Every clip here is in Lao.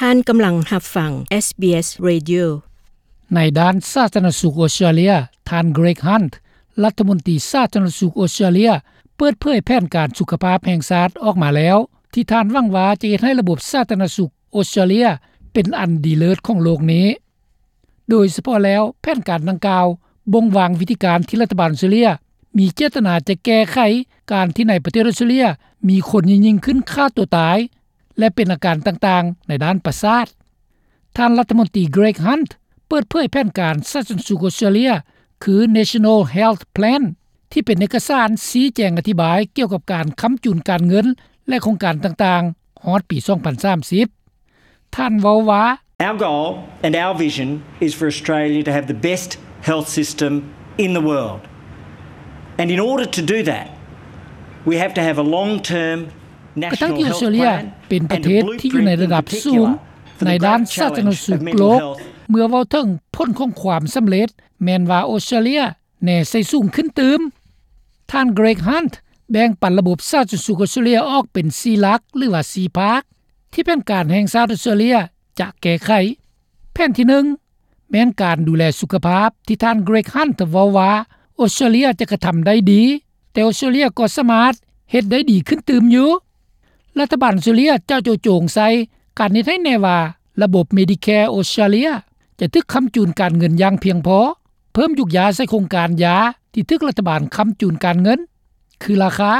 ທ່ານກຳລັງຮັບຟັງ SBS Radio. ໃນດ້ານສາທາລະນະສຸກອອສເຕຣເລຍ, ທ່ານ Greg Hunt ລັດຖະມົນຕີສາທາລະນະສຸກອອສເຕຣເລຍ ເປີດເຜີຍແຜນການສຸຂະພາບແຫ່ງຊາດອອກມາແລ້ວ ທີ່ທ່ານຫວັງວ່າຈະເຮັດໃຫ້ລະບົບສາທາລະນະສຸກອອສເຕຣເລຍເປັນອັນດີເລີດຂອງໂລກນີ້. ໂດຍສະເພາະແລ້ວ, ແຜນການດັ່ງກ່າວບົ່ງວາງວິທີການທີ່ລັດຖະບານອອສເຕຣເລຍມີເຈດຕະນາຈະແກ້ໄຂການທີ່ໃນປະເທດອອສເຕຣເລຍມີຄົນຍິ່ງໆຂຶ້ນຂ້າຕົວຕາຍ ແລະ ເປັນອາການຕ່າງໆໃນດ້ານປະສາດ. ທ່ານລັດຖະມົນຕີ Greg Hunt ເປີດເຜີຍແຜນການສາທາລະນະສຸກອອສເຕຣເລຍ ຄື National Health Plan ທີ່ເປັນເອກະສານຊີ້ແຈງອະທິບາຍກ່ຽວກັບການຄ້ຳຈູນການເງິນ ແລະ ໂຄງການຕ່າງໆ ຮອດປີສອງພັນສາມສິບ. ທ່ານເວົ້າວ່າ, Our goal and our vision is for Australia to have the best health system in the world. And in order to do that, we have to have a long-term ກະທັງທີ່ອອສເຕຣເລຍເປັນປະເທດທີ່ຢູ່ໃນລະດັບສູງໃນດ້ານສາທາລະນະສຸກໂລກ, ເມື່ອເວົ້າເຖິງຜົນຂອງຄວາມສຳເລັດ ແມ່ນວ່າອອສເຕຣເລຍແນໃສ່ສູງຂຶ້ນຕື່ມ. ທ່ານ Greg Hunt ແບ່ງປັນລະບົບສາທາລະນະສຸກອອສເຕຣເລຍອອກເປັນສີ່ຫຼັກ ຫຼືວ່າສີ່ພາກ ທີ່ແຜນການແຫ່ງຊາດອອສເຕຣເລຍຈະແກ້ໄຂ. ແຜນທີໜຶ່ງ ແມ່ນການດູແລສຸຂະພາບ ທີ່ທ່ານ Greg Hunt ເວົ້າວ່າ ອອສເຕຣເລຍຈະກະທຳໄດ້ດີ, ແຕ່ອອສເຕຣເລຍກໍສາມາດເຮັດໄດ້ດີຂຶ້ນຕື່ມຢູ່. ລັດຖະບານອອສເຕຣເລຍຈະໂຈະໂຈງໃສ່ການເຮັດໃຫ້ແນ່ວ່າລະບົບ Medicare ອອສເຕຣເລຍຈະຖືກຄ້ຳຈູນການເງິນຢ່າງພຽງພໍ, ເພີ່ມຢຸກຢາໃສ່ໂຄງການຢາທີ່ຖືກລັດຖະບານຄ້ຳຈູນການເງິນ ຄືລາຄາ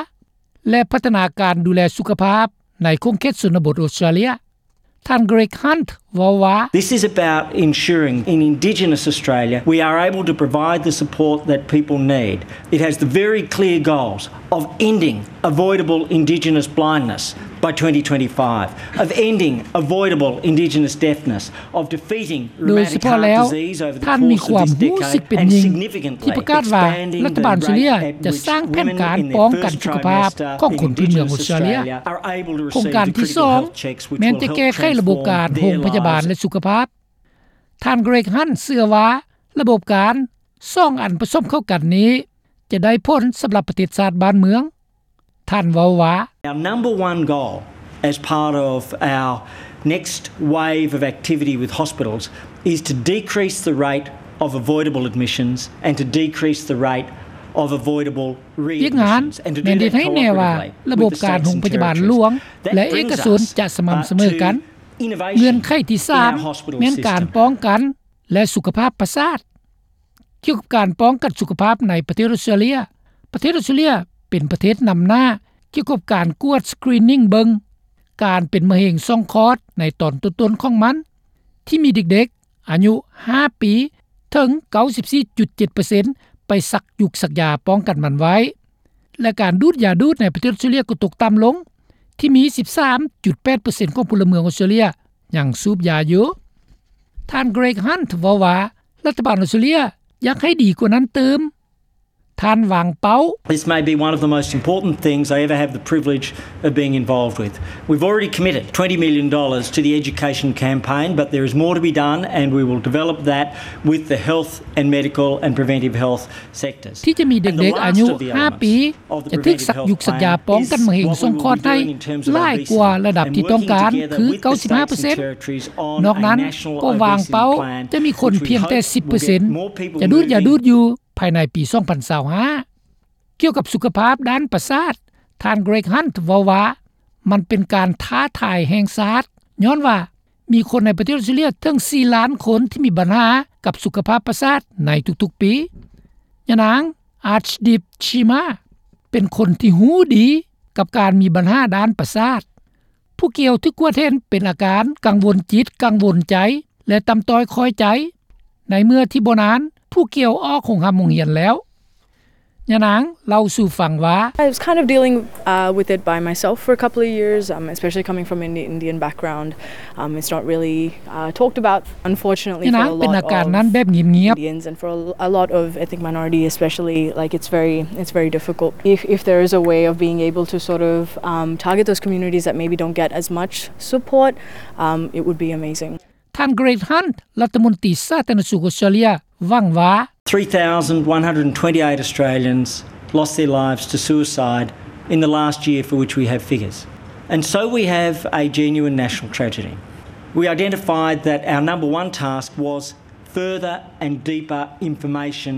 ແລະ ພັດທະນາການດູແລສຸຂະພາບໃນຂົງເຂດຊົນນະບົດອອສເຕຣເລຍ. ທ່ານ Greg Hunt ເວົ້າວ່າ, This is about ensuring in Indigenous Australia we are able to provide the support that people need. It has the very clear goals of ending avoidable Indigenous blindness by twenty twenty-five, of ending avoidable Indigenous deafness, of defeating ໂດຍສະເພາະແລ້ວ ທ່ານມີຄວາມຮູ້ສຶກເປັນຍິ່ງທີ່ປະກາດວ່າລັດຖະບານອອສເຕຣເລຍຈະສ້າງແຜນການປ້ອງກັນສຸຂະພາບຂອງຄົນພື້ນເມືອງອອສເຕຣເລຍ. ໂຄງການທີສອງ ແມ່ນຈະແກ້ໄຂລະບົບການໂຮງພະຍາບານ ແລະ ສຸຂະພາບ. ທ່ານ Greg Hunt ເຊື່ອວ່າລະບົບການສອງອັນປະສົມເຂົ້າກັນນີ້ຈະໄດ້ຜົນສຳລັບປະເທດຊາດບ້ານເມືອງ. ທ່ານເວົ້າວ່າ, Our number one goal as part of our next wave of activity with hospitals is to decrease the rate of avoidable admissions and to decrease the rate of avoidable readmissions and to do that cooperatively with the state government. ວຽກງານແມ່ນເຮັດໃຫ້ແນ່ວ່າລະບົບການໂຮງພະຍາບານຫຼວງ ແລະ ເອກະຊົນຈະສະໝ່ຳສະເໝີກັນ. ເງື່ອນໄຂທີສາມ ແມ່ນການປ້ອງກັນ ແລະ ສຸຂະພາບປະສາດ. ກ່ຽວກັບການປ້ອງກັນສຸຂະພາບໃນປະເທດອອສເຕຣເລຍ, ປະເທດອອສເຕຣເລຍເປັນປະເທດນຳໜ້າກ່ຽວກັບການກວດ screening ເບິ່ງການເປັນມະເຮັງຊ່ອງຄອດໃນຕອນຕົ້ນໆຂອງມັນ ທີ່ມີເດັກໆອາຍຸຫ້າປີເຖິງເກົ້າສິບສີ່ຈຸດເຈັດເປີເຊັນ ໄປສັກຢູກສັກຢາປ້ອງກັນມັນໄວ້. ແລະ ການດູດຢາດູດໃນປະເທດອອສເຕຣເລຍກໍຕົກຕ່ຳລົງ ທີ່ມີສິບສາມຈຸດແປດເປີເຊັນຂອງພົນລະເມືອງອອສເຕຣເລຍຍັງສູບຢາຢູ່. ທ່ານ Greg Hunt ເວົ້າວ່າ ລັດຖະບານອອສເຕຣເລຍຢາກໃຫ້ດີກວ່ານັ້ນຕື່ມ. ທ່ານວາງເປົ້າ, This may be one of the most important things I ever have the privilege of being involved with. We've already committed twenty million dollars to the education campaign, but there is more to be done, and we will develop that with the health and medical and preventive health sectors. ທີ່ຈະມີເດັກໆອາຍຸຫ້າປີຈະຖືກສັກຢູກສັກຢາປ້ອງກັນມະເຮັງຊ່ອງຄອດໃຫ້ຫຼາຍກວ່າລະດັບທີ່ຕ້ອງການ ຄືເກົ້າສິບຫ້າເປີເຊັນ. ນອກນັ້ນກໍວາງເປົ້າຈະມີຄົນພຽງແຕ່ສິບເປີເຊັນຈະດູດຢາດູດຢູ່ພາຍໃນປີສອງພັນຊາວຫ້າ. ກ່ຽວກັບສຸຂະພາບດ້ານປະສາດ, ທ່ານ Greg Hunt ເວົ້າວ່າ ມັນເປັນການທ້າທາຍແຫ່ງຊາດ ຍ້ອນວ່າມີຄົນໃນປະເທດອອສເຕຣເລຍເຖິງສີ່ລ້ານຄົນທີ່ມີບັນຫາກັບສຸຂະພາບປະສາດໃນທຸກໆປີ. ຍານາງ Archdeep Cheema ເປັນຄົນທີ່ຮູ້ດີກັບການມີບັນຫາດ້ານປະສາດ. ຜູ້ກ່ຽວຖືກກວດເຫັນເປັນອາການກັງວົນຈິດ, ກັງວົນໃຈ ແລະ ຕ່ຳຕ້ອຍຄ່ອຍໃຈ. ໃນເມື່ອທີ່ບໍ່ນານ, ຜູ້ກ່ຽວອອກໂຮງຮ່ຳໂຮງຮຽນແລ້ວ. ຍານາງເລົ່າສູ່ຟັງວ່າ, I was kind of dealing, uh, with it by myself for a couple of years, um, especially coming from an Indian background. Um, it's not really, uh, talked about, unfortunately, for a lot of Indians and for a, a lot of ethnic minority especially. Like, it's very, it's very difficult. If, if there is a way of being able to sort of, um, target those communities that maybe don't get as much support, um, it would be amazing. ທ່ານ Greg Hunt ລັດຖະມົນຕີສາທາລະນະສຸກອອສເຕຣເລຍ ຫວັງວ່າ Three thousand one hundred and twenty-eight Australians lost their lives to suicide in the last year for which we have figures. And so we have a genuine national tragedy. We identified that our number one task was further and deeper information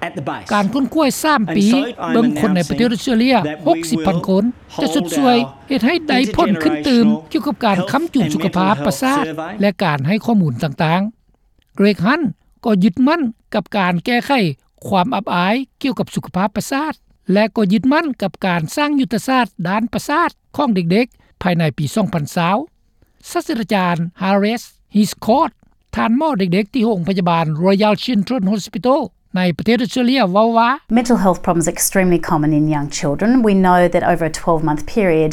at the base. ການຄົ້ນຄວ້າສາມປີ ເບິ່ງຄົນໃນປະເທດອອສເຕຣເລຍ ຫົກສິບພັນຄົນ ຈະຊົດຊ່ວຍເຮັດໃຫ້ໄດ້ຜົນຂຶ້ນຕື່ມ ກ່ຽວກັບການຄ້ຳຈຸນສຸຂະພາບປະສາດ ແລະ ການໃຫ້ຂໍ້ມູນຕ່າງໆ. ເກຣັກ ຮັນ ກໍຍຶດໝັ້ນກັບການແກ້ໄຂຄວາມອັບອາຍກ່ຽວກັບສຸຂະພາບປະສາດ ແລະ ກໍຍຶດໝັ້ນກັບການສ້າງຍຸດທະສາດດ້ານປະສາດຂອງເດັກໆ ພາຍໃນປີສອງພັນຊາວ. ສາດສະດາຈານ Haris Hiscourt ທ່ານໝໍເດັກໆ ທີ່ໂຮງພະຍາບານ Royal Children's Hospital ໃນປະເທດອອສເຕຣເລຍ ເວົ້າວ່າ Mental health problems are extremely common in young children. We know that over a twelve-month period,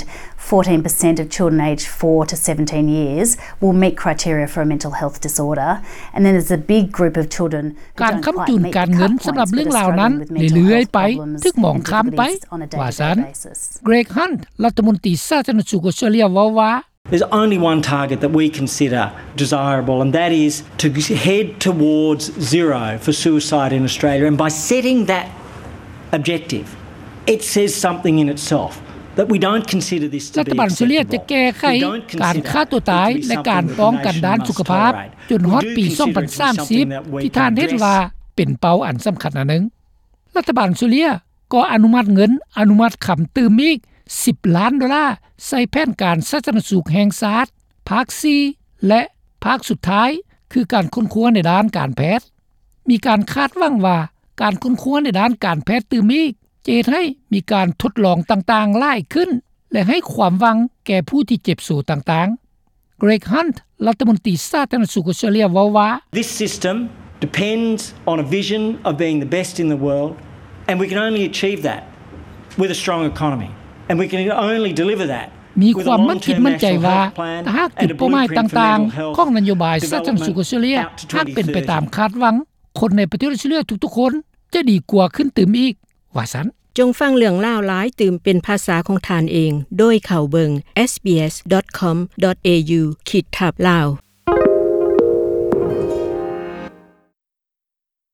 fourteen percent of children aged four to seventeen years will meet criteria for a mental health disorder. And then there's a big group of children who ການ don't ຄ້ຳ quite ຈຸນ meet ການເງິນ the cut ສຳລັບເລື່ອງລາວນັ້ນ points with mental ເລື້ອຍໆ health ໄປ problems ຖືກມອງຂ້າມໄປ and disabilities on a daily basis. ວ່າຊັ້ນ. ເກຣັກ ຮັນ ລັດຖະມົນຕີສາທາລະນະສຸກອອສເຕຣເລຍ ເວົ້າວ່າ There's only one target that we consider desirable, and that is to head towards zero for suicide in Australia. And by setting that objective, it says something in itself that we don't consider this to be acceptable. ລັດຖະບານອອສເຕຣເລຍຈະແກ້ໄຂການຂ້າຕົວຕາຍ ແລະ ການປ້ອງກັນດ້ານສຸຂະພາບ ຈົນຮອດປີສອງພັນສາມສິບ ທີ່ທ່ານເຫັນວ່າເປັນເປົ້າອັນສຳຄັນອັນໜຶ່ງ. ລັດຖະບານອອສເຕຣເລຍກໍອະນຸມັດເງິນ ອະນຸມັດຄຳຕື່ມອີກສິບລ້ານໂດລາ ໃສ່ແຜນການສາທາລະນະສຸກແຫ່ງຊາດ ພາກສີ່ ແລະ ພາກສຸດທ້າຍ ຄືການຄົ້ນຄວ້າໃນດ້ານການແພດ. ມີການຄາດຫວັງວ່າ ການຄົ້ນຄວ້າໃນດ້ານການແພດຕື່ມອີກ ຈະເຮັດໃຫ້ມີການທົດລອງຕ່າງໆຫຼາຍຂຶ້ນ ແລະ ໃຫ້ຄວາມຫວັງແກ່ຜູ້ທີ່ເຈັບໂສຕ່າງໆ. ເກຣັກ ຮັນ ລັດຖະມົນຕີສາທາລະນະສຸກອອສເຕຣເລຍ ເວົ້າວ່າ This system depends on a vision of being the best in the world, and we can only achieve that with a strong economy, and we can only deliver that ມີຄວາມໝັ້ນຈິດໝັ້ນໃຈວ່າ ຖ້າຫາກຈຸດເປົ້າໝາຍຕ່າງໆຂອງນະໂຍບາຍສາທາລະນະສຸກອອສເຕຣເລຍ ຫາກເປັນໄປຕາມຄາດຫວັງ, ຄົນໃນປະເທດອອສເຕຣເລຍທຸກໆຄົນ ຈະດີກວ່າຂຶ້ນຕື່ມອີກ, ວ່າຊັ້ນ. ຈົ່ງຟັງເລື່ອງລາວຫຼາຍຕື່ມເປັນພາສາຂອງທ່ານເອງ ໂດຍເຂົ້າເບິ່ງ SBS dot com dot au ຂີດທັບ Lao.